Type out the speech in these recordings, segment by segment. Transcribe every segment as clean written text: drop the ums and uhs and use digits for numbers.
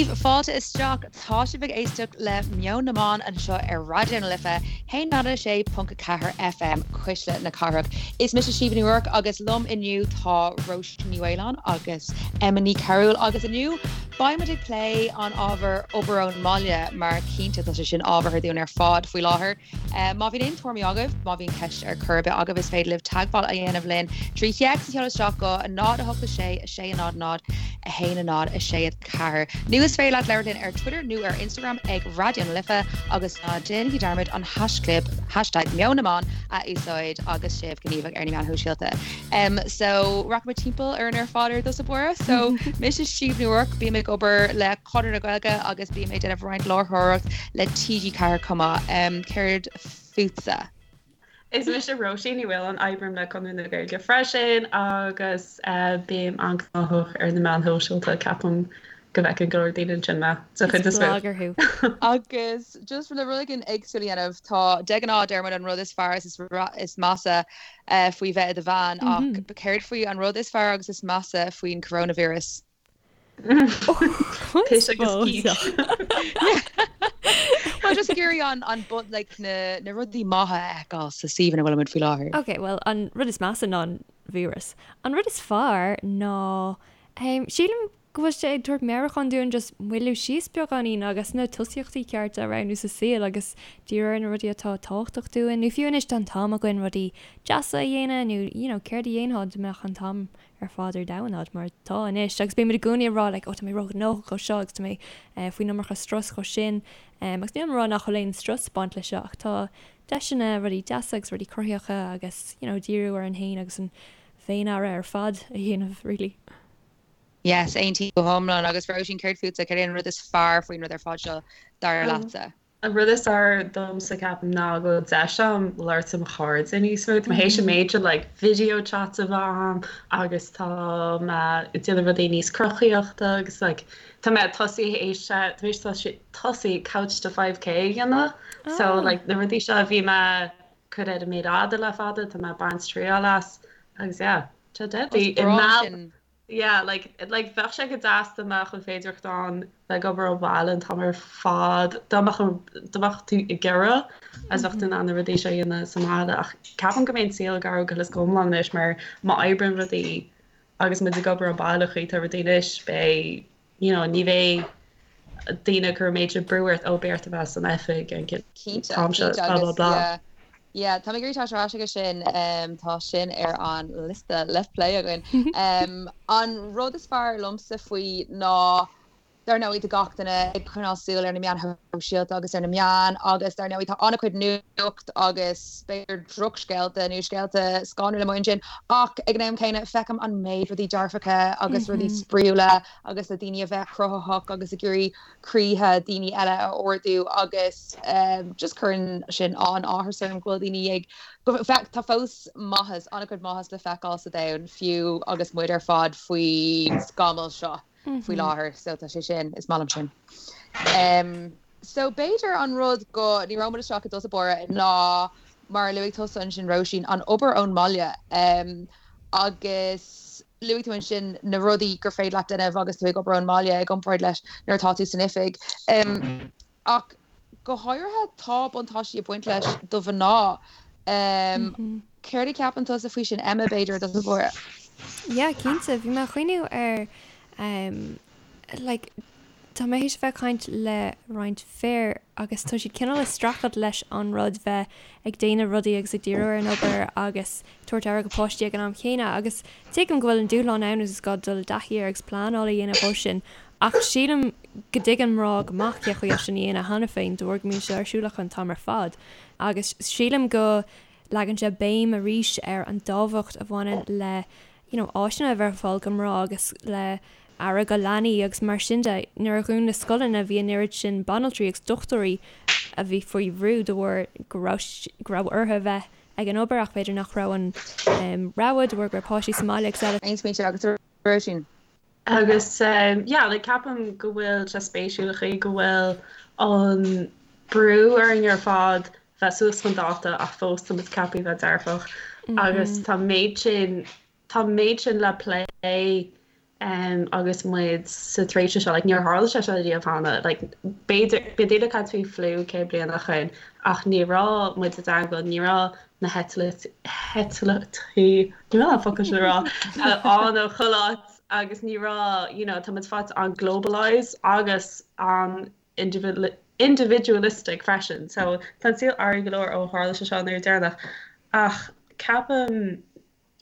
daoibh, fáilte isteach. Tá sibh ag éisteacht le Meon na mBan anseo ar Raidió na Life, 106.4 FM, Cuisle na Cathrach. Is mise Síomha Ní Ruairc agus liom inniu tá Róisín Ní Mhaoláin agus Emma Ní Chearúil agus inniu beidh muid ag plé an ábhar obair ón mbaile mar cinnte tá sé sin ábhartha dúinn ar fad faoi láthair. Má bhíonn aon tuairimí agaibh, má bhíonn ceist ar chor ar bith agaibh, is féidir libh teagmháil a dhéanamh linn trí théacs a sheoladh isteach go 0 8 6 6 0 0 1 0 6 4. Nó is féidir leat labhairt linn ar Twitter nó ar Instagram ag Raidió na Life agus ná déanaigí dearmad an haischlib, hashtag Meon na mBan, a úsáid agus sibh gníomhach ar na meáin shóisialta. So rachaimid timpeall orainn ar fad ar dtús báire. So mise Síomha Ní Ruairc, bím ag obair le Conradh na Gaeilge agus bím ag déanamh roinnt láithreoireacht le TG4 chomh maith. Céard fútsa? Is mise Róisín Ní Mhaoláin, oibrím le Conradh na Gaeilge freisin agus bím an-ghnóthach ar na meáin shóisialta, ceapaim go bhfeiceann go leor daoine ansin mé, den chuid is mó. Is blogger thú. Agus just le rud éigin éagsúil a dhéanamh, tá de ghnáth deir muid an rud is fearr is is measa faoi bheith i do bhean ach céard faoi an rud is fearr agus is measa faoin coronavirus? Piss agus cíos. Well just ag iarraidh an an but like na na rudaí maithe a fheiceáil sa suíomh ina bhfuilimid faoi láthair. Ok, well an rud is measa ná an víreas. An rud is fearr ná um, sílim go bhfuil sé ag tabhairt meabhrúchán dúinn just moilliú síos beagáinín agus na tosaíochtaí cearta a roghnú sa saol agus díriú ar na rudaí atá tábhachtach dúinn nó fiú anois tá an t-am againn rudaí deasa a dhéanamh nó you know céard a dhéanfá dá mbeadh an t-am ar fad ar domhan agat mar atá anois agus bímid i gcónaí ag rá like oh tá mé róghnóthach dhó seo agus tá mé eh, faoin iomarca strus dhó sin um, agus níl mé ag rá nach bhfuil aon strus ag baint leis seo ach tá deiseanna rudaí deasa agus rudaí cruthaitheacha agus you know díriú orainn féin agus an féin-aire ar fad a dhéanamh really. Yes, aontaím go hiomlán agus Róisín céard fútsa, céard é an rud is fearr faoin rud ar fad seo dar leatsa? An rud is fearr domsa ceapaim ná go bhfuil deis agam labhairt le mo chairde níos mó. Tá mé théis an méid sin like video chats a bheith agam agus tá mé ag déanamh rudaí níos cruthaíochta agus like tá mé tosaí théis tá mé théis tosaí couch to 5k a dhéanamh. So like na rudaí seo a bhí mé ag cur ar an méar fhada le fada tá mé ag baint triail as agus yeah tá deadly. Is breá sin. Yeah, like, like bheadh sé go deas dá mbeadh an féidireacht ann bheith ag obair ó bhaile an t-am ar fad, dá mbeadh an, dá mbeadh tú ag iarraidh agus bheadh tú in ann na rudaí seo a dhéanamh sa mbaile ach ceapaim go mbeidh an saol ag athrú go huile is go hiomlán anois mar má oibríonn rudaí agus muid ag obair ó bhaile an chaoi atá rudaí anois beidh, you know, ní bheidh daoine ag cur an méid sin brú ort, ó beidh ort a bheith san oifig an Cinnte, t-am seo, cinnte blah blah agus blah. yeah, yeah, tá mé ag iarraidh teacht ar ais aige sin, tá sin ar an liosta le plé againn. An rud is fearr liomsa faoi ná, dar ndóigh, tá gach duine ag coinneáil súil ar na meáin shóisialta agus ar na meáin agus dar ndóigh tá an-chuid nuacht agus b'fhéidir drochscéalta nó scéalta scanrúla amuigh ansin ach ag an am céanna feicim an méid rudaí dearfacha agus rudaí spraíúla agus le daoine a bheith cruthaitheach agus ag iarraidh croíthe daoine eile a ardú agus just cuireann sin an-áthas orm go bhfuil daoine ag, go, tá fós maitheas, an-chuid maitheas le feiceáil sa domhan fiú agus muid ar fad faoin scamall seo faoi láthair so tá sé sin, is maith liom sin. So b'fhéidir an rud go ndíreoidh muid isteach i dtús báire ná mar a luaigh tusa ansin Róisín, an obair ón mbaile agus Luaigh tú ansin na rudaí gur féidir leat déanamh agus tú ag obair ón mbaile i gcomparáid leis nuair atá tú san oifig. Ach go háirithe tá buntáistí ag baint leis do mhná. Céard a cheapann tusa faoi sin Emma, b'fhéidir, i dtús báire? Yeah, cinnte. Bhí mé ag cuimhniú ar like Tá mé théis a bheith ag caint le roinnt fir agus tá siad cineál ag streachailt leis an rud bheith ag déanamh rudaí agus ag díriú ar an obair agus tabhairt aire go páistí ag an am chéanna agus tuigim go bhfuil an dúshlán ann agus is gá dul i dtaithí air agus pleanáil a dhéanamh dhó sin ach sílim go dtuigeann mná go maith cé chaoi é sin a dhéanamh cheana féin de bharr go mbíonn sé ar siúl acu an t-am ar fad agus sílim go leagann sé béim arís ar an dtábhacht a bhaineann le you know, áiseanna a bheith ar fáil go mná agus le aire go leanaí agus mar sin de. Nuair a dhún na scoileanna bhí an oiread sin banaltraí agus dochtúirí a bhí faoi bhrú de bharr go raibh go raibh orthu a bheith ag an obair ach b'fhéidir nach raibh an rogha de bharr go raibh páistí sa mbaile agus eile. Aon smaointe agat a Róisín? Agus yeah, like ceapaim go bhfuil sé spéisiúil an chaoi go bhfuil an brú orainn ar fad bheith suas chun dáta ach fós tá muid ceaptha bheith dearfach agus tá méid sin tá méid sin le plé. Um, agus muid sa tréimhse seo, like, níor tharla sé seo riamh cheana, like, b'fhéidir, bhí daoine ag caint faoi fliú 100 bliain ó shin, ach ní raibh muid i dteagmháil, ní raibh na heitiltí, ní raibh an focal sin a rá, ann ó chuile áit, agus ní raibh, you know, tá muid faighte an-globalised agus an individualistic freisin, so tá an saol athraithe go leor ó tharla sé seo an uair deireanach, ach ceapaim,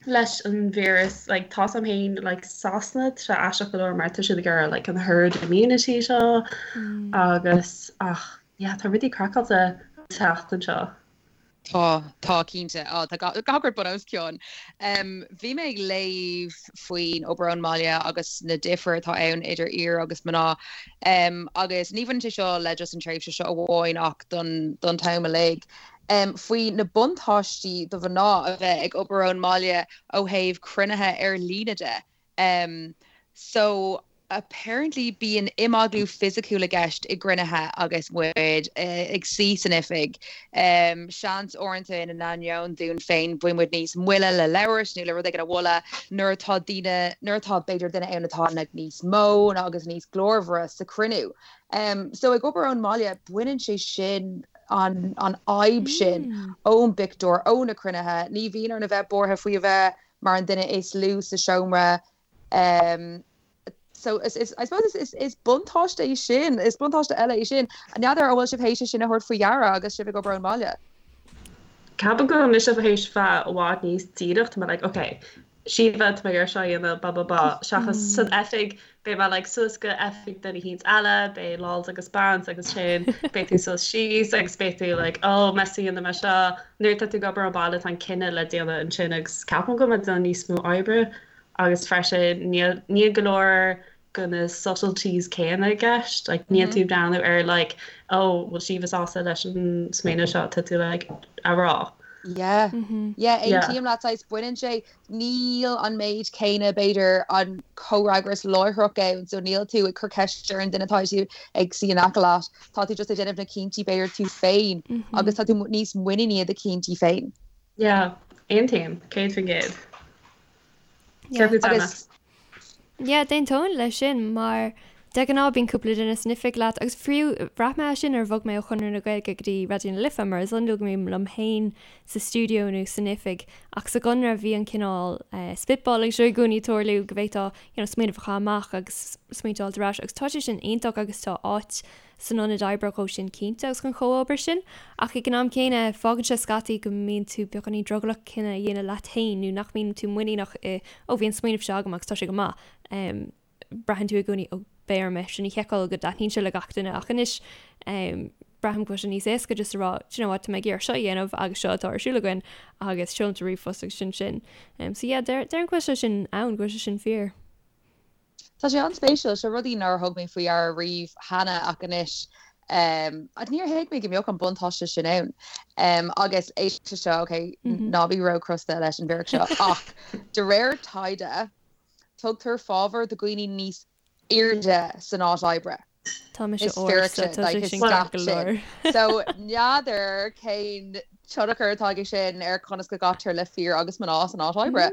leis an víreas like tá's a'm féin like Sasana tá sé aisteach go leor mar tá siad ag iarraidh like an herd immunity seo agus ach yeah tá rudaí craiceáilte an tseachtain seo. Tá, tá cinnte. Á tá gach rud bun os cionn. Bhí mé ag léamh faoin obair ón mbaile agus na difir atá ann idir fhir agus mná. Agus ní bhaineann sé seo le just an tréimhse seo amháin ach don don t-am uilig. faoi na buntáistí do mhná a bheith ag obair ón mbaile ó thaobh cruinnithe ar líne de. So apparently bíonn imeaglú fisiciúil i gceist i gcruinnithe agus muid ag suí san oifig. Seans uaireanta ina n-ainneoin dúinn féin bíonn muid níos moille le labhairt nó le rud éigin a mholadh nuair atá daoine, nuair atá b'fhéidir duine ann atá níos mó agus níos glórmhaire sa chruinniú. So ag obair ón mbaile baineann sé sin an fhadhb sin ón bpictiúr, ó na cruinnithe. Ní bhíonn orainn a bheith buartha faoi a bheith mar an duine is lú sa seomra. So is, is, I suppose is, is buntáiste é sin, is buntáiste eile é sin. N'fheadar an bhfuil sibh théis é sin a thabhairt faoi deara agus sibh ag obair ón mbaile? Ceapaim go bhfuil mise théis bheith i bhfad níos díreach, tá mé like, ok, Síomha, tá mé ag iarraidh seo a dhéanamh, ba ba ba, seachas san oifig, beidh mé like suas go oifig duine eicínt eile, beidh lads agus beans agus sin, beidh tú suas síos agus beidh tú like oh meas tú an ndéanfaidh mé seo, nuair atá tú ag obair ón baile tá an cinneadh le déanamh ansin agus ceapaim go bhfuil mé ag déanamh níos mó oibre agus freisin níl níl go leor de na subtleties céanna i gceist, like níl tú ag breathnú ar like oh bhfuil Síomha sásta leis an smaoineamh seo, tá tú like a rá. Yeah, yeah, aontaím leat, saghas baineann sé, níl an méid céanna b'fhéidir an comhfhreagras láithreach ann so níl tú ag cur ceist ar an duine atá tú ag suí in aice leat, tá tú just ag déanamh na cinntí b'fhéidir tú féin agus tá tú níos muiníní i do chinntí féin. Yeah, aontaím, 100%. Céard fút Emma? Agus Yeah, d'aontóinn leis sin mar de ghnáth bíonn cúpla duine san oifig leat agus fiú bhraith mé é sin nuair a bhog mé ó Chonradh na Gaeilge go dtí Raidió na Life mar is iondúil go mbím liom féin sa stiúideo nó san oifig ach sa gConradh bhí an cineál spitballing seo i gcónaí ag tarlú go bhféadfá you know, smaoineamh a chaitheamh amach agus smaointe a fháilt ar ais agus tá sé sin iontach agus tá áit san ionad oibre dhó sin cinnte agus an chomhobair sin, ach ag an am céanna fágann sé scaití go mbíonn tú beagáinín drogallach cinneadh a dhéanamh leat féin nó nach mbíonn tú muiníneach i 'ó bhí an smaoineamh seo agam agus tá sé go maith'. Braitheann tú i gcónaí 'ó beidh orm é sin a sheiceáil go dtaitníonn sé le gach duine' ach anois braithim go bhfuil sé níos éasca just a rá 'do you know what tá mé ag iarraidh seo a dhéanamh agus seo atá ar siúl againn agus seolaimse ríomhphost agus sin sin. So yeah déarfainn go bhfuil sé sin ann, go bhfuil sé sin fíor. Tá sé an-spéisiúil, seo rudaí nár thug mé faoi deara riamh cheana ach anois níor thuig mé go mbeadh an buntáiste sin ann. Agus éist leis seo, ok, ná bí róchrosta leis an bhfíric seo, ach de réir taighde, tugtar fábhar do dhaoine níos airde san áit oibre. Tá mise ard so tá sé sin ceart go leor. So n'fheadar cén tionchar atá aige sin ar conas go gcaitear le fir agus mná san áit oibre.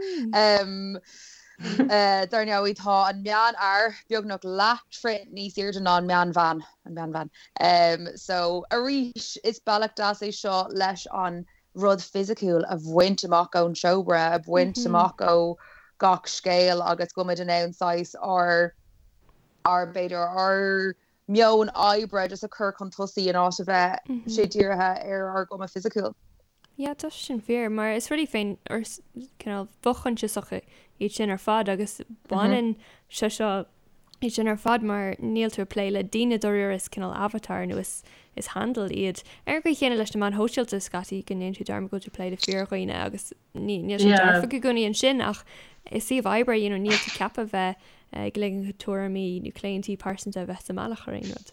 Dar ndóigh tá an meánfhear beagnach leathtroith níos airde ná an meánbhean, an meánbhean. So arís is bealach deas é seo leis an rud fisiciúil a bhaint amach ón seomra, a bhaint amach ó gach scéal agus go bhfuil muid in ann saghas ár ár, b'fhéidir, ár meon oibre just a chur chun tosaigh in áit a bheith sé dírithe ar ár gcuma fisiciúil. Yeah, tá sé sin fíor, mar is rudaí féin, or cineál fo-choinsiasacha iad sin ar fad agus baineann sé seo iad sin ar fad mar níl tú ag plé le daoine dáiríre is cineál avatar nó is is handle iad. Ar an gcaoi chéanna leis na meáin shóisialta scaití go ndéanann tú dearmad go bhfuil tú ag plé le fíordhaoine agus ní níl sé dearfach i gcónaí ansin ach i suíomh oibre you know níl tú ceaptha bheith ag ligean do tuairimí nó claontaí pearsanta a bheith sa mbealach ar aon rud.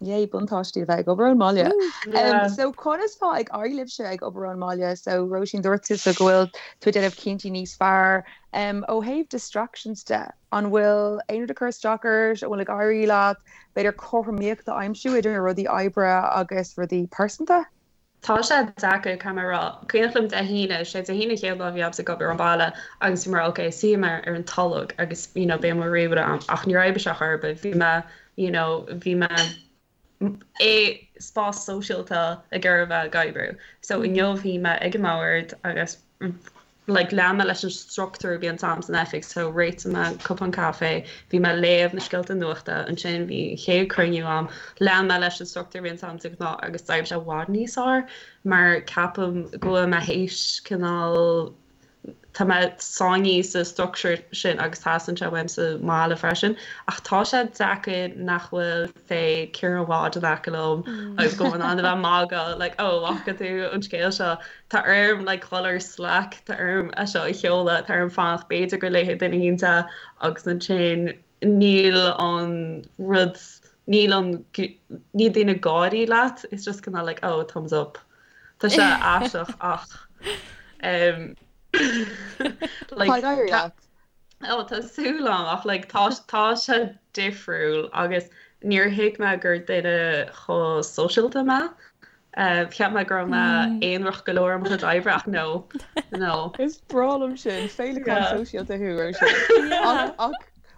Yay, buntáistí a bheith ag obair ón mbaile. Um, so conas tá ag éirí libhse ag obair ón mbaile? So Róisín dúirt tusa go bhfuil tú ag déanamh cinntí níos fearr. Um, ó thaobh distractions de, an bhfuil aon rud ag cur isteach ort, an bhfuil ag éirí leat b'fhéidir cothromaíocht a aimsiú idir rudaí oibre agus rudaí pearsanta? Tá sé deacair, caithfidh mé a rá. Cuimhneach liom Dé hAoine, sé Dé hAoine an chéad lá a bhí agamsa ag obair ón bhaile agus bhí mé mar ok, suífidh mé ar an tolg agus you know beidh mo ríomhaire a'm ach níor oibrigh sé chor ar bith. Bhí mé you know bhí mé i spás sóisialta ag iarraidh a bheith ag oibriú. So inniu bhí mé ag an mbord agus like lean mé leis an struchtúr a bhíonns a'm san oifig so réitigh mé cupán caife, bhí mé ag léamh na scéalta nuachta, ansin bhí an chéad cruinniú a'm, lean mé leis an struchtúr a bhíonns a'm de ghnáth agus d'oibrigh sé i bhfad níos fearr mar ceapaim go bhfuil mé théis cineál tá mé sáinnithe sa struchtúr sin agus teastaíonn sé uaim sa mbaile freisin ach tá sé deacair nach bhfuil say Ciarán Wadd in aice liom agus go bhfuil in ann a bheith ag magadh like oh bhfaca tú an scéal seo Tá orm like dhul ar Slack, tá orm é seo a sheoladh, tá orm fanacht b'fhéidir go léifidh duine éicint é agus ansin níl an rud, níl an, níl daoine ag gáirí leat, it's just kind of like oh thumbs up. Tá sé aisteach ach um, like, Tá ag éirí leat. Ó tá súil agam ach like tá tá sé difriúil agus níor thuig mé gur duine chomh sóisialta mé. Cheap mé go raibh mé aonarach go leor i mo chuid oibre ach no, no. Is breá liom sin, féileacán sóisialta thú, Róisín. Ach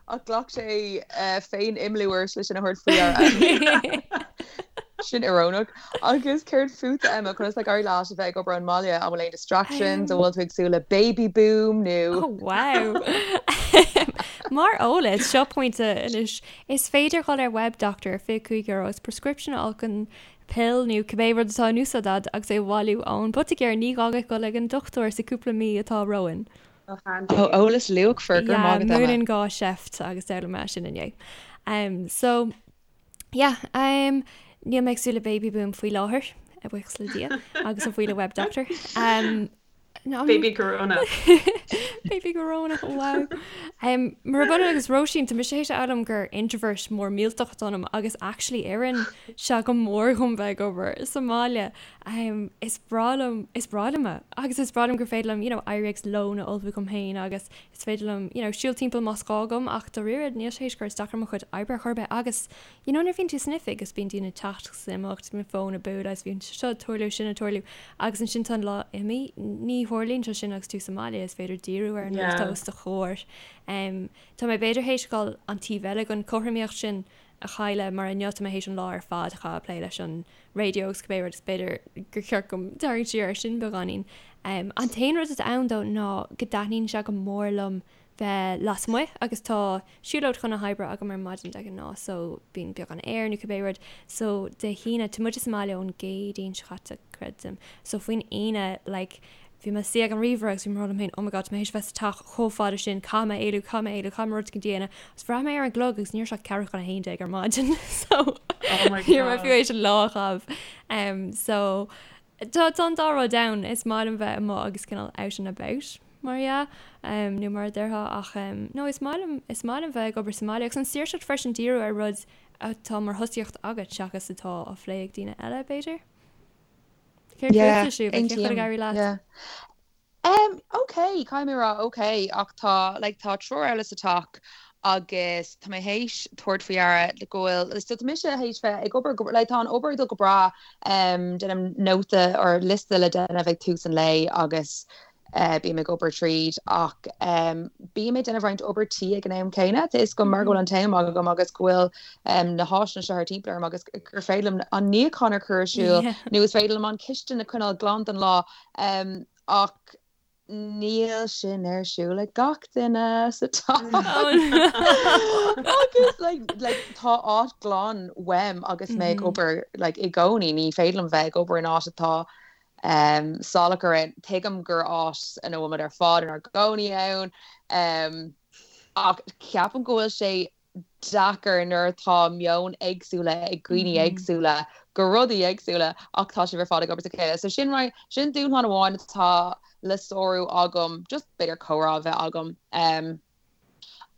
ach ghlac sé féin-imeallú ort le sin a thabhairt faoi deara. Sin iorónach. Agus céard fútsa, Emma, conas tá ag éirí leat a bheith ag obair ón mbaile? An bhfuil aon distractions? An bhfuil tú ag súil le baby boom nó? Oh wow! Mar eolas, seo pointe anois, is féidir dhul ar WebDoctor ar €25 agus prescription a fháil chun pill nó cibé rud atá in úsáid agat agus é a bhailiú ón poitigéir, ní gá duit dul ag an dochtúir sa cúpla mí atá romhainn. Oh handy. Ó, eolas luachmhar, go raibh maith agat, Emma. Yeah, múineann gá seift agus d'fhoghlaim mé sin inné. Um, so, yeah, um, níl mé ag súil le baby boom faoi láthair, a bhuíochas le Dia, agus a bhuí le WebDoctor. Um, Baby Corona. Baby Corona, wow. Um, Murab ionann agus Róisín, tá mise théis a fhoghlaim gur introvert mór millteach atá ionam agus actually oireann sé go mór dhom bheith ag obair sa mbaile. Um, is breá liom, is breá liom é. Agus is breá liom gur féidir liom, you know, éirí agus lón a ullmhú dhom féin agus is féidir liom, you know, siúl timpeall más gá dhom ach dáiríre níl sé théis cur isteach ar mo chuid oibre ar chor ar bith agus You know nuair a bhíonn tú san oifig agus bíonn daoine ag teacht agus ag imeacht, bíonn fón ag bualadh agus bíonn seo ag tarlú, sin ag tarlú agus ansin tá an lá imithe. Ní tharlaíonn sé sin agus tú sa mbaile, is féidir díriú ar an rud atá os do chomhair. Um, tá mé b'fhéidir théis dhul an taobh eile den chothromaíocht sin a chailleadh mar inniu tá mé théis an lá ar fad a chaitheamh ag plé leis an raidió agus cibé rud is b'fhéidir gur cheart dom tarraingt siar ar sin beagáinín. Um, an t-aon rud atá ann though ná go dtaitníonn sé go mór liom bheith lasmuigh agus tá siúlóid chun na hoibre agam ar maidin de ghnáth so bíonn beagán aer nó cibé rud so Dé hAoine, tá muide sa mbaile ón gCéadaoin seo caite creidim so faoin Aoine like bhí mé suí ag an ríomhaire agus bhí mé ag rá liom féin oh my god tá mé théis bheith sa teach chomh fada sin caithfidh mé éalú caithfidh mé éalú caithfidh mé rud éicint a dhéanamh agus bhraith mé ar an gclog agus ní raibh sé ach ceathrú chun 11 ar maidin so Oh my ní raibh mé fiú god. théis an lá a chaitheamh um, so Tá an dá rud ann, is maith liom bheith amuigh agus cineál out and about, mar dhea, nó mar a déarfá, ach no, is maith liom, is maith liom bheith ag obair sa mbaile agus an saoirseacht freisin díriú ar rud atá mar thosaíocht agat seachas atá á phlé ag daoine eile, b'fhéidir? Céard Yeah, fútsa, Siobhra? Cén chaoi ag aontaím, éirí leat? yeah. Um, ok, caithfidh mé a rá ok, ach tá, like, tá triúr eile sa teach agus tá mé théis tabhairt faoi deara go bhfuil, so tá mise théis bheith ag obair go, like, tá an obair ag dul go breá, um, déanaim nóta or liosta le déanamh ag tús an lae agus eh, bím ag obair tríd ach um, bím ag déanamh roinnt obair tí ag an am céanna, tá 'fhios agam mar go bhfuil an t-am agam agus go bhfuil um, na háiseanna seo thar timpeall orm agus gur féidir liom an níochán a chur ar siúl Yeah. nó is féidir liom an cistin a choinneáil glan don lá. Um, ach níl sin ar siúl ag gach duine sa teach. Agus like, like, tá áit glan uaim agus mé ag obair like, i gcónaí, ní féidir liom bheith ag obair in áit atá um, salach ar aon. Tuigim gur áit ina bhfuil muid ar fad inár gcónaí ann, um, ach ceapaim go bhfuil sé deacair nuair atá meon éagsúla ag dhaoine éagsúla go rudaí éagsúla ach tá sibh ar fad ag obair le chéile. So sin right, sin dúshlán amháin atá le sárú agam, just b'fhéidir comhrá a bheith agam. Um,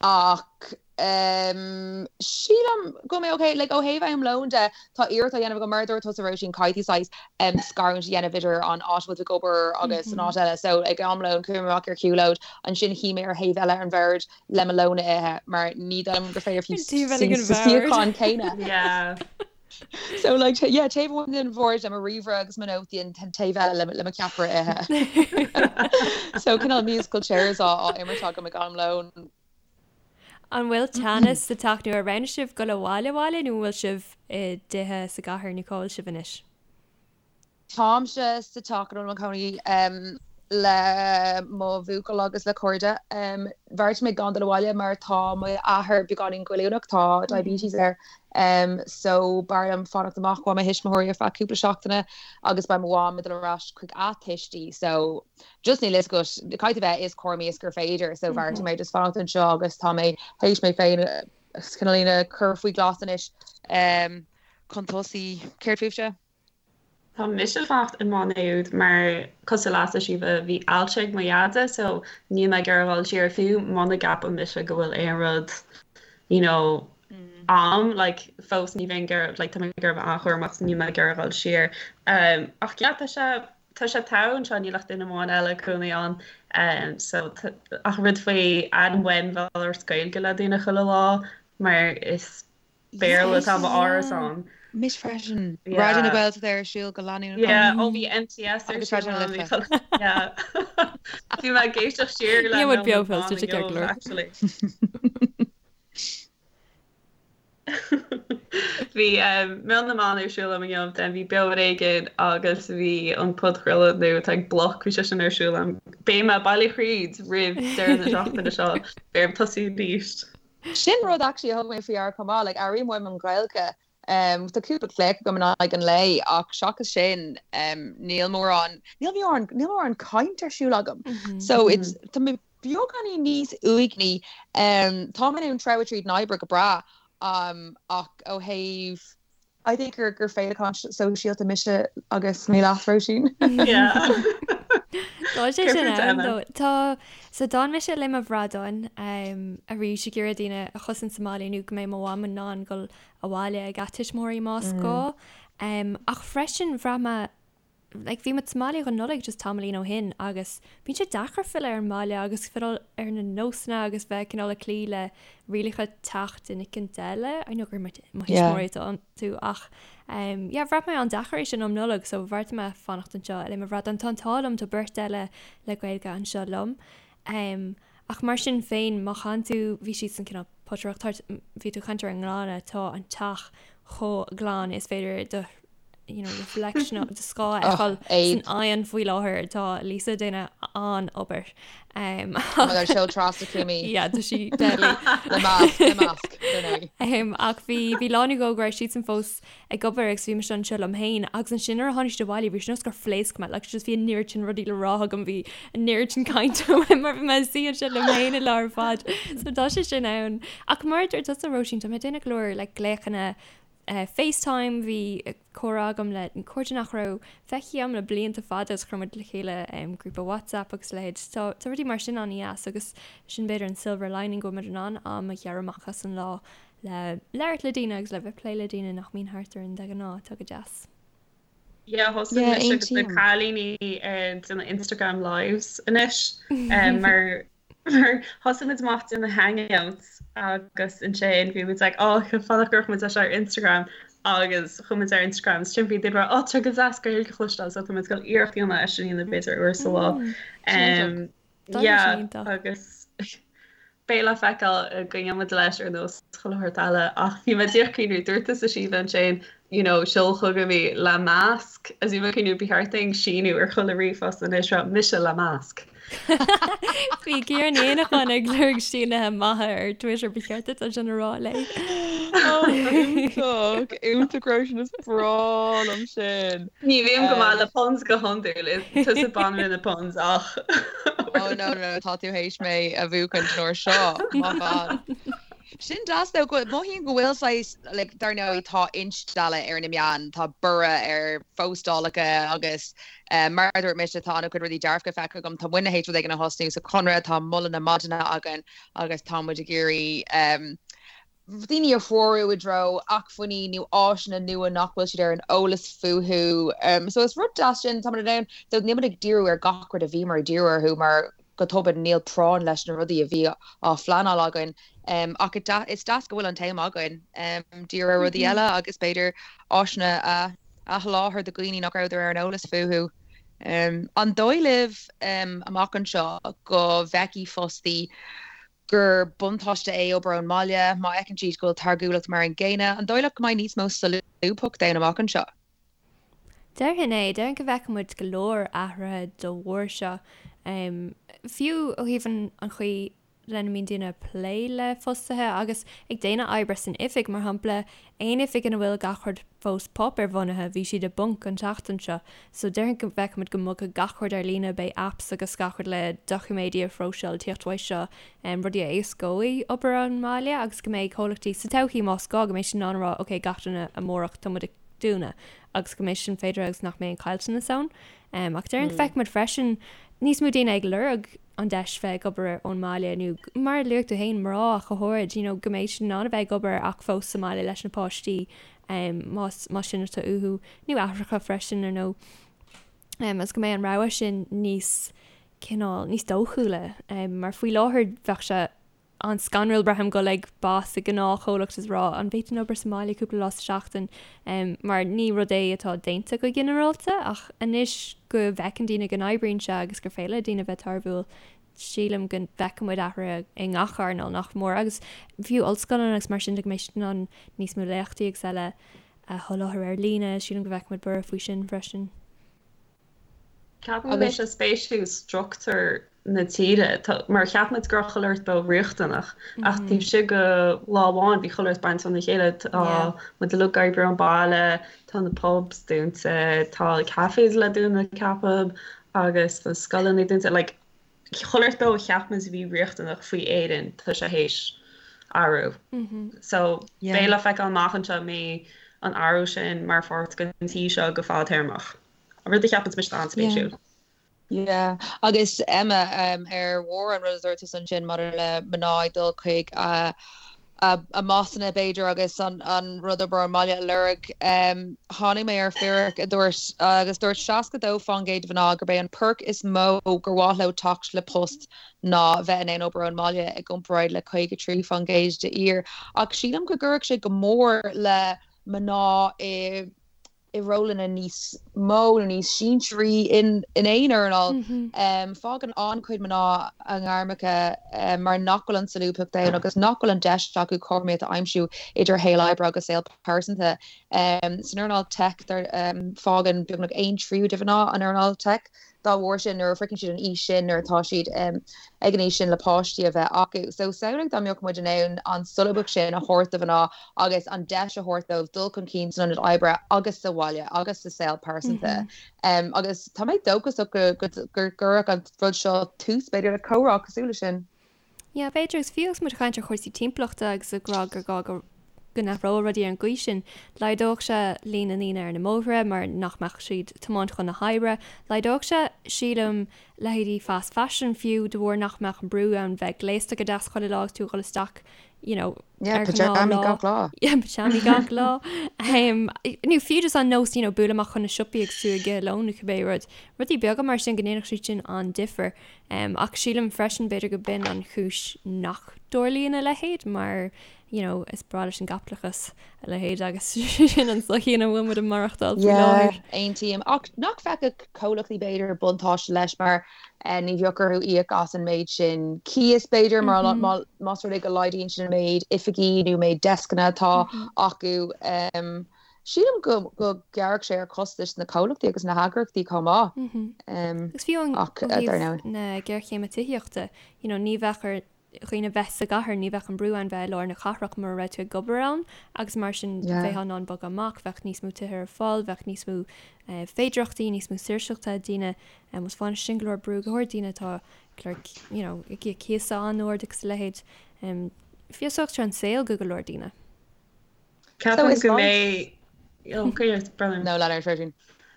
ach um, sílim go mbeidh mé ok, like, ó thaobh am lóin de, tá iarracht á dhéanamh agam mar a dúirt tusa Róisín, caithfidh tú saghas um, scarúint a dhéanamh idir an áit a bhfuil tú ag obair agus an áit eile. So ag am lóin chuaigh mé amach ar shiúlóid, ansin shuigh mé ar thaobh eile an bhoird le mo lón a ithe mar ní dóigh liom gur féidir fiú Taobh eile den sa bhord. suíochán céanna. Yeah. So like yeah, taobh amháin den bhord le mo ríomhaire agus mo nótaí an taobh eile le mo cheapaire ithe. So cineál musical chairs á á imirt agam ag am lóin. An bhfuil teannas sa teach nó ar roghnaigh sibh dul abhaile abhaile nó an bhfuil sibh i dtithe sa gcathair nó cá bhfuil sibh anois? Táimse sa teach ina bhfuil mo chónaí le mo bhuachaill agus le cairde. Bheartaigh mé gan dul abhaile mar tá m'athair beagáinín goilliúnach, tá diabetes air, so b'fhearr liom fanacht amach ó mo thuismitheoirí ar feadh cúpla seachtaine agus beidh mo mham ag dul ar ais chuig a tuistí so just níl fhios agat, caithfidh tú bheith is cúramaí is gur féidir so bheartaigh mé just fanacht anseo agus tá mé théis mé féin cineáilín a chur faoi ghlas anois chun tosaí. Céard fúibhse? Tá mise ag fanacht i Maigh Nuad mar cosúil leatsa Síomha bhí ailse ag mo dheaide so níl mé ag iarraidh dhul siar fiú muna gceapann mise go bhfuil aon rud you know a'm like fós ní bheinn ag iarraidh like tá mé ag iarraidh bheith an-chúramach so níl mé ag iarraidh dhul siar um, ach yeah tá sé tá sé togha anseo níl ach duine amháin eile ag cónaí ann um, so ach rud faoi airím uaim bheith ag labhairt Gaeilge le daoine chuile lá mar is Béarla atá i m'árasán. Mise freisin. Raidió na Gaeltachta ar siúl go leanúnach. Yeah, ó bhí MTS ar siúl ann. Yeah. Bhí mé ag éisteacht siar le Meon beo fós, tá sé ceart go leor. Actually. Bhí Meon na mBan ar siúl agam inniu, then bhí Beo ar Éigean agus bhí an podchraoladh nua atá ag Bloc, bhí sé sin ar siúl agam. Beidh mé bailithe thríd roimh deireadh na seachtaine seo, beidh orm tosú arís. Sin rud actually a thug mé faoi deara chomh maith, like airím uaim an Ghaeilge. Tá cúpla glaoch agam in aghaidh an lae ach seachas sin níl mórán, níl mórán, níl mórán caint ar siúl agam. So it's, tá mé beagáinín níos uaigní. Tá mé in ann treabhadh tríd an oibre go breá ach ó thaobh, I think gur gur féileacán sóisialta mise agus mé leat, Róisín. Yeah. Tá sé sin ann though. Tá, so d'fhan mise le mo bhradáin arís ag iarraidh daoine a chosaint sa mbaile nó go mbeidh mo mham in ann dul abhaile ag a tuismitheoirí más gá. Ach freisin bhraith mé like bhí muid sa mbaile don Nollaig just tamaillín ó shin agus bíonn sé deacair filleadh ar an mbaile agus filleadh ar na nósanna agus bheith cineál ag cloí le rialacha teach duine éicint eile. I know gur mo thuismitheoirí atá iontu ach um, yeah, bhraith mé an-deacair é sin um Nollaig so bheartaigh mé fanacht anseo le mo bhradán. Tá an t-ádh liom tá beirt eile le Gaeilge anseo liom. Um, ach mar sin féin má chaitheann tú bhí siad san cineál potaireacht bhí tú ag caint ar an nglanadh tá an teach chomh glan is féidir do you know, reflection do scáth a fheiceáil san oigheann faoi láthair tá Lisa ag déanamh an-obair. Um, Mar seol trasna cúmaí. Yeah, tá sí deadly. Le masc, le masc, dar ndóigh. Um, ach bhí bhí lá nó dhó go raibh siadsan fós ag obair agus bhí mise anseo liom féin agus ansin nuair a tháinig siad abhaile bhí sé nós gur phléasc mé like just bhí an oiread sin rudaí le rá agam bhí an oiread sin cainte uaim mar bhí mé ag suí anseo liom féin an lá ar fad. So tá sé sin ann. Ach mar a dúirt tusa Róisín tá mé ag déanamh go leor like glaochanna FaceTime, bhí comhrá agam le cairde nach raibh feicthe agam le blianta fada agus chuir muid le chéile grúpa WhatsApp agus a leithéid. Tá tá rudaí mar sin an-dheas agus sin b'fhéidir an silver lining go bhfuil muid in ann am a ghearradh amach as an lá le labhairt le daoine agus le bheith ag plé le daoine nach mbíonn thart orainn de ghnáth, atá go deas. Yeah, thosaigh Yeah, mise agus na aontaím. cailíní ag déanamh Instagram lives anois mar Mar thosaigh muid amach ag déanamh hangouts agus ansin bhí muid like oh fadach go raibh muid leis ar Instagram agus chuaigh muid ar Instagram is sin bhí daoine oh tá go deas Gaeilge a chloisteáil so tá muid ag dul iarracht a dhéanamh é sin a dhéanamh b'fhéidir uair sa lá. Mm, Yeah agus beidh le feiceáil an gcoinneoidh muid leis ar nós chuile shórt eile ach bhí mé díreach ag cuimhniú dúirt tusa Síomha ansin you know seol chugam í le masc agus bhí mé ag cuimhniú ba cheart dúinn síniú ar chuile ríomhphost anois rá mise le masc. Bhí Ciara Ní Éanacháin ag lorg sínithe maithe ar Twitter ba cheart duit é sin a rá léi. Iontach, iontach Róisín is breá liom sin. Ní bhím go maith le puns go hiondúil, is tusa banríon na puns ach. Oh no no tá tú théis mé a bhuachan an uair seo, my bad. Sin deas though, go, mothaím go bhfuil saghas, like, dar ndóigh tá instealladh ar na meáin, tá borradh ar phóstálacha agus mar a dúirt mise tá an-chuid rudaí dearfacha feicthe agam, tá muidne théis rud éigin a thosnú sa Chonradh, tá moladh na maidine againn agus tá muid ag iarraidh daoine a threorú i dtreo acmhainní nó áiseanna nua nach bhfuil siad ar an eolas fúthu. So is rud deas sin, tá muid in ann, so níl muid ag díriú ar gach rud a bhíomar ag díriú orthu mar. Go tobann níl práinn leis na rudaí a bhí á phleanáil againn. Ach is deas go bhfuil an t-am againn díriú ar rudaí eile agus b'fhéidir áiseanna a sholáthar do dhaoine nach rabhadar ar an eolas fúthu. An dóigh libh amach anseo go bhfeicfidh fostaí gur buntáiste é obair ón mbaile má fheiceann siad go bhfuil táirgiúlacht mar an gcéanna? An dóigh leat go mbeidh níos mó solúbthachta ann amach anseo? Déarfainn é. Déarfainn go bhfeicfidh muid go leor athruithe dá bharr seo. Fiú ó thaobh an chaoi lena mbíonn daoine ag plé le fostaithe agus ag déanamh oibre san oifig, mar shampla, aon oifig ina bhfuil gach rud fós páipéarbhunaithe, bhí siad i bponc an tseachtain seo. So déarfainn go bhfeicfidh muid go mbogfaidh gach rud ar líne, beidh apps agus gach rud le doiciméidí a phróiseáil ag tíocht uaidh seo, rudaí a éascóidh obair ón mbaile agus go mbeidh comhlachtaí sa todhchaí más gá go mbeidh siad in ann a rá ok gach duine amárach tá muid ag dúnadh agus go mbeidh sin féidir agus nach mbeidh aon chaillteanas ann. Ach déarfainn go bhfeicfidh muid freisin níos mó daoine ag lorg an deis bheith ag obair ón mbaile nó mar a luaigh tú féin mná ach go háirid, you know, go mbeidh siad in ann a bheith ag obair ach fós sa mbaile leis na páistí más más sin atá uathu nó aithreacha freisin ar ndóigh. Agus go mbeidh an rogha sin níos cineál níos dóchúla mar faoi láthair bheadh sé an-scanrúil braithim dul ag boss i ngnáthchomhlacht is rá an bhféadfainn obair sa mbaile cúpla lá sa seachtain mar ní rud é atá déanta go ginearálta ach anois go bhfeiceann daoine go n-oibríonn sé agus gur féidir le daoine bheith tairbhiúil sílim go bhfeicfidh muid athruithe i ngach earnáil nach mór agus fiú ollscoileanna agus mar sin de go mbeidh siad in ann níos mó léachtaí agus eile a sholáthar ar líne sílim go bhfeicfidh muid borradh faoi sin freisin. Ceapaim go mbeidh sé spéisiúil struchtúr na tíre, mar cheap muid go raibh chuile shórt beo riachtanach, ach taobh istigh de lá amháin bhí chuile shórt bainte óna chéile, tá muid uilig ag oibriú ón baile, tá na pubs dúnta, tá cafés le dúnadh ceapaim, agus tá scoileanna dúnta, like chuile shórt beo a cheap muid a bhí riachtanach faoi Éirinn, tá sé théis athrú. So beidh le feiceáil amach anseo an mbeidh an athrú sin mar pháirt den tír seo go fadtéarmach. An rud a cheapann mise an-spéisiúil. Yeah. Agus Emma, ar bharr an rud a dúirt tusa ansin maidir le mná ag dul chuig a a mbossanna b'fhéidir agus an rud obair ón mbaile a lorg, tháinig mé ar fíric a dúirt, agus dúirt 62% de mhná gurb é an perk is mó gur mhaith leo teacht le post ná bheith in ann obair ón mbaile i gcomparáid le 53% d'fhir. Ach sílim go gcuirfeadh sé go mór le mná i i rólanna níos mó nó níos sinsearaí in aon earnáil. Fágann an-chuid mná a ngairmeacha mar nach bhfuil an tsolúbthacht ann agus nach bhfuil an deis acu cothromaíocht a aimsiú idir shaol oibre agus saol pearsanta. San earnáil tech, fágann beagnach aon tríú de mhná an earnáil tech. Dá bharr sin, nuair a shroicheann siad an aois sin, nuair atá siad ag an aois sin le páistí a bheith acu. So samhlaigh dá mbeadh muid in ann an solúbthacht sin a thabhairt do mhná agus an deis a thabhairt dóibh dul chun cinn san ionad oibre agus sa bhaile agus sa saol pearsanta. Agus tá mé dóchasach go gcuirfeadh an rud seo tús, b'fhéidir, le comhrá cosúil leis sin. Yeah, b'fhéidir, agus fiú agus muid ag caint ar chúrsaí timpeallachta agus ag rá gur gá go go n-athródh rudaí ar an gcaoi sin, laghdódh sé líon na ndaoine ar na mbóithre mar nach mbeadh siad ag tiomáint chun na hoibre. Laghdódh sé, sílim, leithéidí fast fashion fiú de bharr nach mbeadh an brú ann bheith gléasta go deas chuile lá agus tú ag dul isteach, you know, Yeah, ar pyjamaí gach lá. Yeah, pyjamaí gach lá. Um, nó fiú just an nós, you know, bualadh amach chun na siopaí agus tú ag ithe lón nó cibé rud. Rudaí beaga mar sin go ndéanfadh siad sin an-difear. Ach sílim freisin b'fhéidir go b'in an chúis nach dtarlaíonn a leithéid mar you know is breá leis an gcaipitleachas a leithéid agus sin an tsochaí ina bhfuil muid ag maireachtáil faoi láthair. Yeah, aontaím. Ach nach bhfeicfeadh comhlachtaí b'fhéidir buntáiste leis mar ní bheadh orthu íoc as an méid sin cíos b'fhéidir mar más rud é go laghdaíonn sin an méid oifigí nó méid deascanna atá acu. Sílim go ngearrfadh sé ar chostais na comhlachtaí agus na heagraíochtaí chomh maith. Agus fiú ó thaobh na géarchéime tithíochta, you know, ní bheadh ar dhaoine bheith sa gcathair, ní bheadh an brú ann bheith i lár na cathrach mura raibh tú ag obair ann agus mar sin bheifeá in ann bogadh amach, bheadh níos mó tithe ar fáil, bheadh níos mó féidearthachtaí, níos mó saoirseachta ag daoine agus bhainfeadh sin go leor brú, go háirid daoine atá ag lorg, you know, ag íoc cíosa an-ard agus a leithéid. Feabhsódh sé an saol go go leor daoine. Ceapaim go mbeidh Oh, No, lean ort.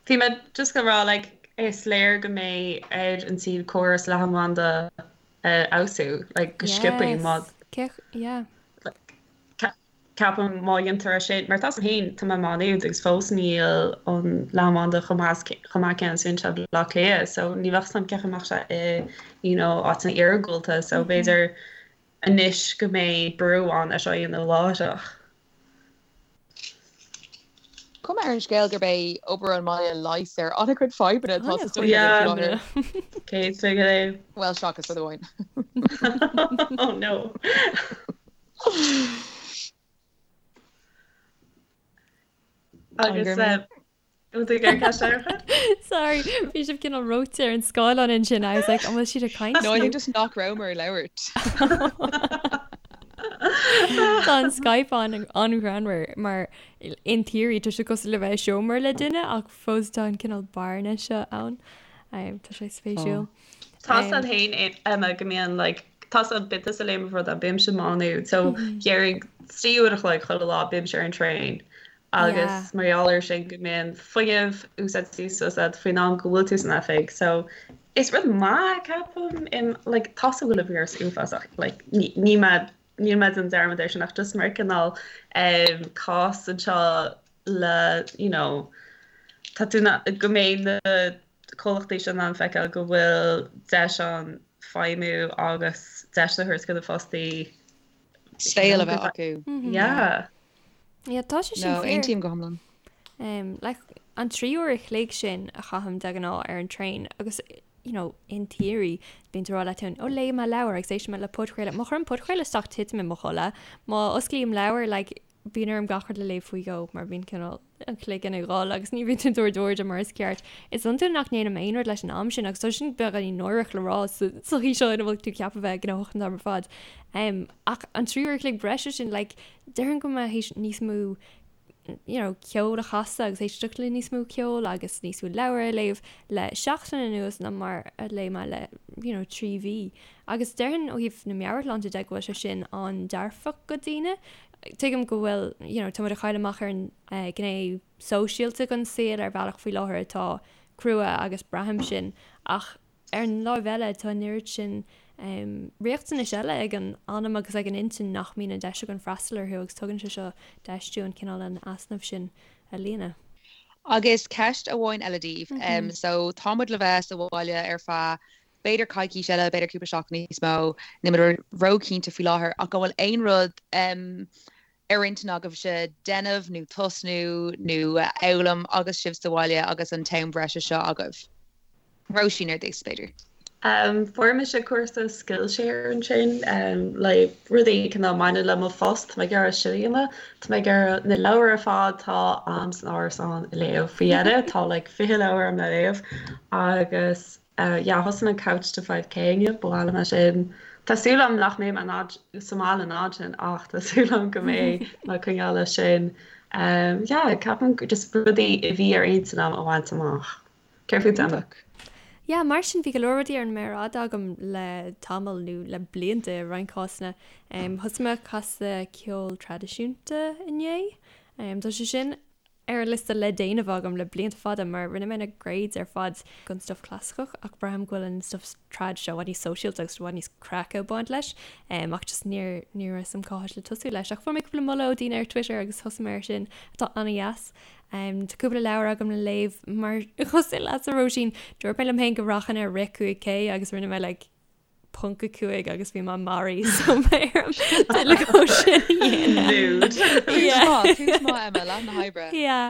Bhí mé just ag rá like is léir go mbeidh ar an tír córas leathanbhanda a fheabhsú like go sciobtha má Yeah. Ceapaim má dhéantar é sin, mar tá 's agam féin, tá mé i Má Nuad agus fós níl an leathanbhanda chomh maith chomh maith céanna is a bhíonn sé i Baile Átha Cliath so ní bheadh 's agam cén chaoi a mbeadh sé i you know áiteanna iargúlta so b'fhéidir anois go mbeidh brú ann é seo a dhéanamh láithreach. Cuma ar an scéal gurb é obair ón mbaile leigheas ar an-chuid fadhbanna atá sa tsochaí faoi láthair. 100%. Bhuel, seachas rud amháin. Oh no. Agus bhfuil tú ag iarraidh ceist eile a chur? Sorry, bhí sibh cineál reoite ar an scáileán ansin. I was like, an bhfuil siad ag caint? No, I think just nach rabhamar ag labhairt. Tá an Skype an an-ghreannmhar mar in theory tá sé cosúil le bheith i seomra le duine ach fós tá an cineál bearna seo ann. Tá sé spéisiúil. Tá 's a'd féin Emma go mbíonn like tá 's a'd bíonn tusa léim rud bímse i Má Nuad so déarfainn 3 uair a chloig chuile lá bímse ar an traein agus mar gheall air sin go mbíonn fuinneamh úsáidte suas a'd faoin am go bhfuil tú san oifig so is rud maith ceapaim im like tá 's a'm go bhfuil an víreas uafásach like ní ní mé níl mé ag déanamh dearmad air sin ach just mar cineál um cás anseo le you know tá tú na go mbeidh na comhlachtaí seo in ann feiceáil go bhfuil deis ann feidhmiú agus deis a thabhairt do na fostaí saol a bheith acu. Yeah. Yeah, tá sé sin No, aontaím go hiomlán. Um, like, an 3 uair a chloig sin a chaithim de ghnáth ar an traein agus you know, in theory, bíonn tú ag rá leat féin, ó léifidh mé leabhar agus éistfidh mé le podchraoladh. Má chuirim podchraoladh isteach titim i mo chodladh. Má osclaím leabhar, like, bíonn orm gach rud a léamh faoi dhó mar bíonn cineál an cloigeann ag dhul agus ní bhíonn tú ag tabhairt airde mar is ceart. Is iontúil nach ndéanaim aon rud leis an am sin agus tá sin beagáinín náireach le rá sa tsochaí seo ina bhfuil tú ceaptha bheith gnóthach an t-am ar fad. Um, ach an 3 uair a chloig breise sin, like, déarfainn go mbeidh théis níos mó you know, ceol a chasadh agus éisteacht le níos mó ceoil agus níos mó leabhar a léamh le seachtain anuas ná mar a léigh mé le you know, 3 mhí. Agus déarfainn ó thaobh na meabhairshláinte de go bhfuil sé sin an-dearfach do dhaoine. Tuigim go bhfuil, you know, tá muid ag cailleadh amach ar an ghné sóisialta den saol ar bhealach faoi láthair atá crua agus braithim sin ach ar an láimh eile tá an oiread sin riachtanais eile ag an anam agus ag an intinn nach mbíonn an deis againn freastal orthu agus tugann sé seo deis dúinn cineál an easnamh sin a líonadh. Agus ceist amháin eile daoibh. So tá muid le bheith sa bhaile ar feadh b'fhéidir coicís eile, b'fhéidir cúpla seachtain níos mó, níl muid róchinnte faoi láthair, ach an bhfuil aon rud ar intinn agaibhse déanamh nó tosnú nó a fhoghlaim agus sibh sa bhaile agus an t-am breise seo agaibh? Róisín ar dtús, b'fhéidir. Fuair mise cúrsa Skillshare ansin le rudaí cineál mbaineann le mo phost, tá mé ag iarraidh sin a dhéanamh, tá mé ag iarraidh na leabhair ar fad atá a'm san árasán a léamh faoi dheireadh, tá like 20 leabhar a'm le léamh agus Yeah, thosaigh mé Couch to 5K inniu, ba mhaith liom é sin. Tá súil agam nach mbeidh mé in fhad, sa mbaile an fhad sin ach tá súil agam go mbeidh mé ag coinneáil leis sin. Yeah, ceapaim just rudaí a bhí ar intinn agam a bhaint amach. Céard fút Emma? Yeah, mar sin bhí go leor rudaí ar an méar fhada agam le tamall nó le blianta i roinnt cásanna. Thosaigh mé ag casadh ceol traidisiúnta inné. Tá sé sin ar an liosta le déanamh agam le blianta fada mar rinne mé na grades ar fad don stuff clasaiceach ach braithim go bhfuil an stuff trad seo i bhfad níos sóisialta agus i bhfad níos craice ag baint leis ach just níor ní raibh 'fhios a'm cá háit le tosú leis ach fuair mé cúpla moladh ó daoine ar Twitter agus thosaigh mé ar sin atá an-dheas. Tá cúpla leabhar agam le léamh mar cosúil leatsa Róisín dúirt mé liom féin go rachainn ar rith 5K agus rinne mé like ponc 5 agus bhí mé maraithe so beidh orm tuilleadh dhó sin a dhéanamh. Tús maith Emma, leath na hoibre. Yeah.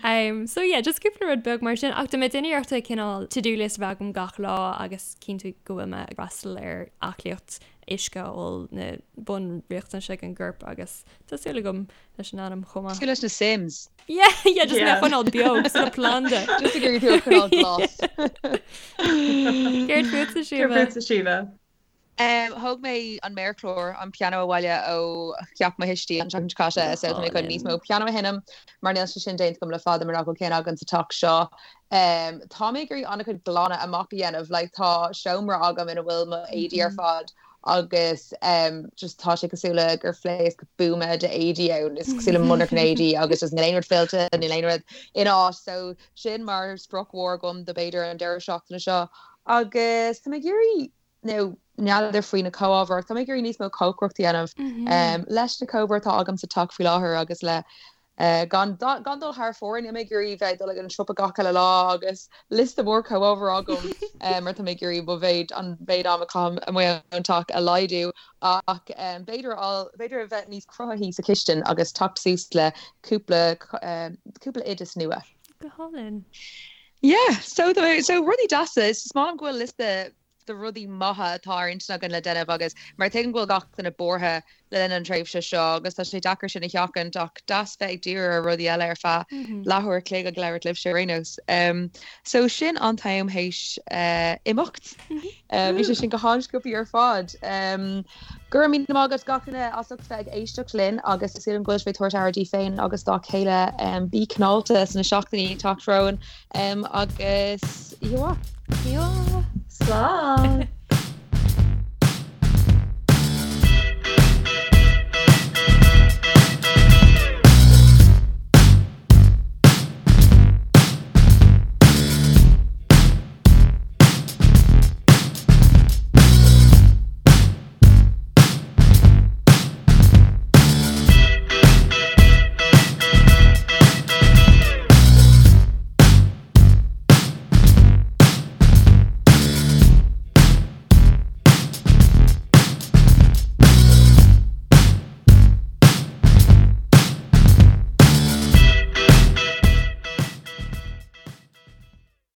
Um, so yeah, just cúpla rud beag mar sin ach tá mé ag déanamh iarrachta cineál to-do list a bheith agam gach lá agus cinntiú go bhfuil mé ag freastal ar aclaíocht uisce a ól na bunriachtanais ag an gcorp agus tá súil agam leis an anam chomh maith. Cosúil leis na Sims. Yeah, yeah, just mé a choinneáil beo cosúil le planda. Just ag iarraidh tú a choinneáil glas. Céard fútsa, Síomha? Céard fútsa, Síomha? Thóg mé an méarchlár, an pianó abhaile ó theach mo thuistí an tseachtain seo caite so tá mé chun níos mó pianó a sheinm mar níl sé sin déanta agam le fada mar nach bhfuil ceann againn sa teach seo. Tá mé ag iarraidh an-chuid glanadh amach a dhéanamh, like tá seomra agam ina bhfuil mo éadaí ar fad agus just tá sé cosúil le gur phléasc buama de éadaí ann, is cosúil le monarcha éadaí agus just níl aon rud fillte, níl aon rud ina áit so sin mar sprioc mhór agam do b'fhéidir an deireadh seachtaine seo agus tá mé ag iarraidh nó. N'fheadar faoi na comhábhair ach tá mé ag iarraidh níos mó cócaireacht a dhéanamh leis na comhábhair atá agam sa teach faoi láthair agus le gan gan dul thar fóir. Níl mé ag iarraidh bheith ag dul ag an siopa gach uile lá agus liosta mór comhábhar agam mar tá mé ag iarraidh mo mhéid an mhéid am a chaithim amuigh ón teach a laghdú ach b'fhéidir b'fhéidir a bheith níos cruthaithí sa chistin agus teacht suas le cúpla cúpla oideas nua. Go hálainn. Yeah, so so rudaí deasa. Is maith liom go bhfuil liosta de rudaí maithe atá ar intinn againn le déanamh agus mar tuigim go bhfuil gach duine buartha le linn an tréimhse seo agus tá sé deacair sin a sheachaint ach deas bheith ag díriú ar rudaí eile ar feadh leathuair a chloig ag labhairt libhse ar aon nós. So sin an t-am théis imeacht. Bhí sé sin go han-sciobtha ar fad. Go raibh míle maith agat gach duine as ucht bheith ag éisteacht linn agus tá súil agam go bhfuil sibh ag tabhairt aire daoibh féin agus dá chéile. Bí cineálta sna seachtainí ag teacht romhainn. Agus oíche mhaith. Oíche mhaith. Slán!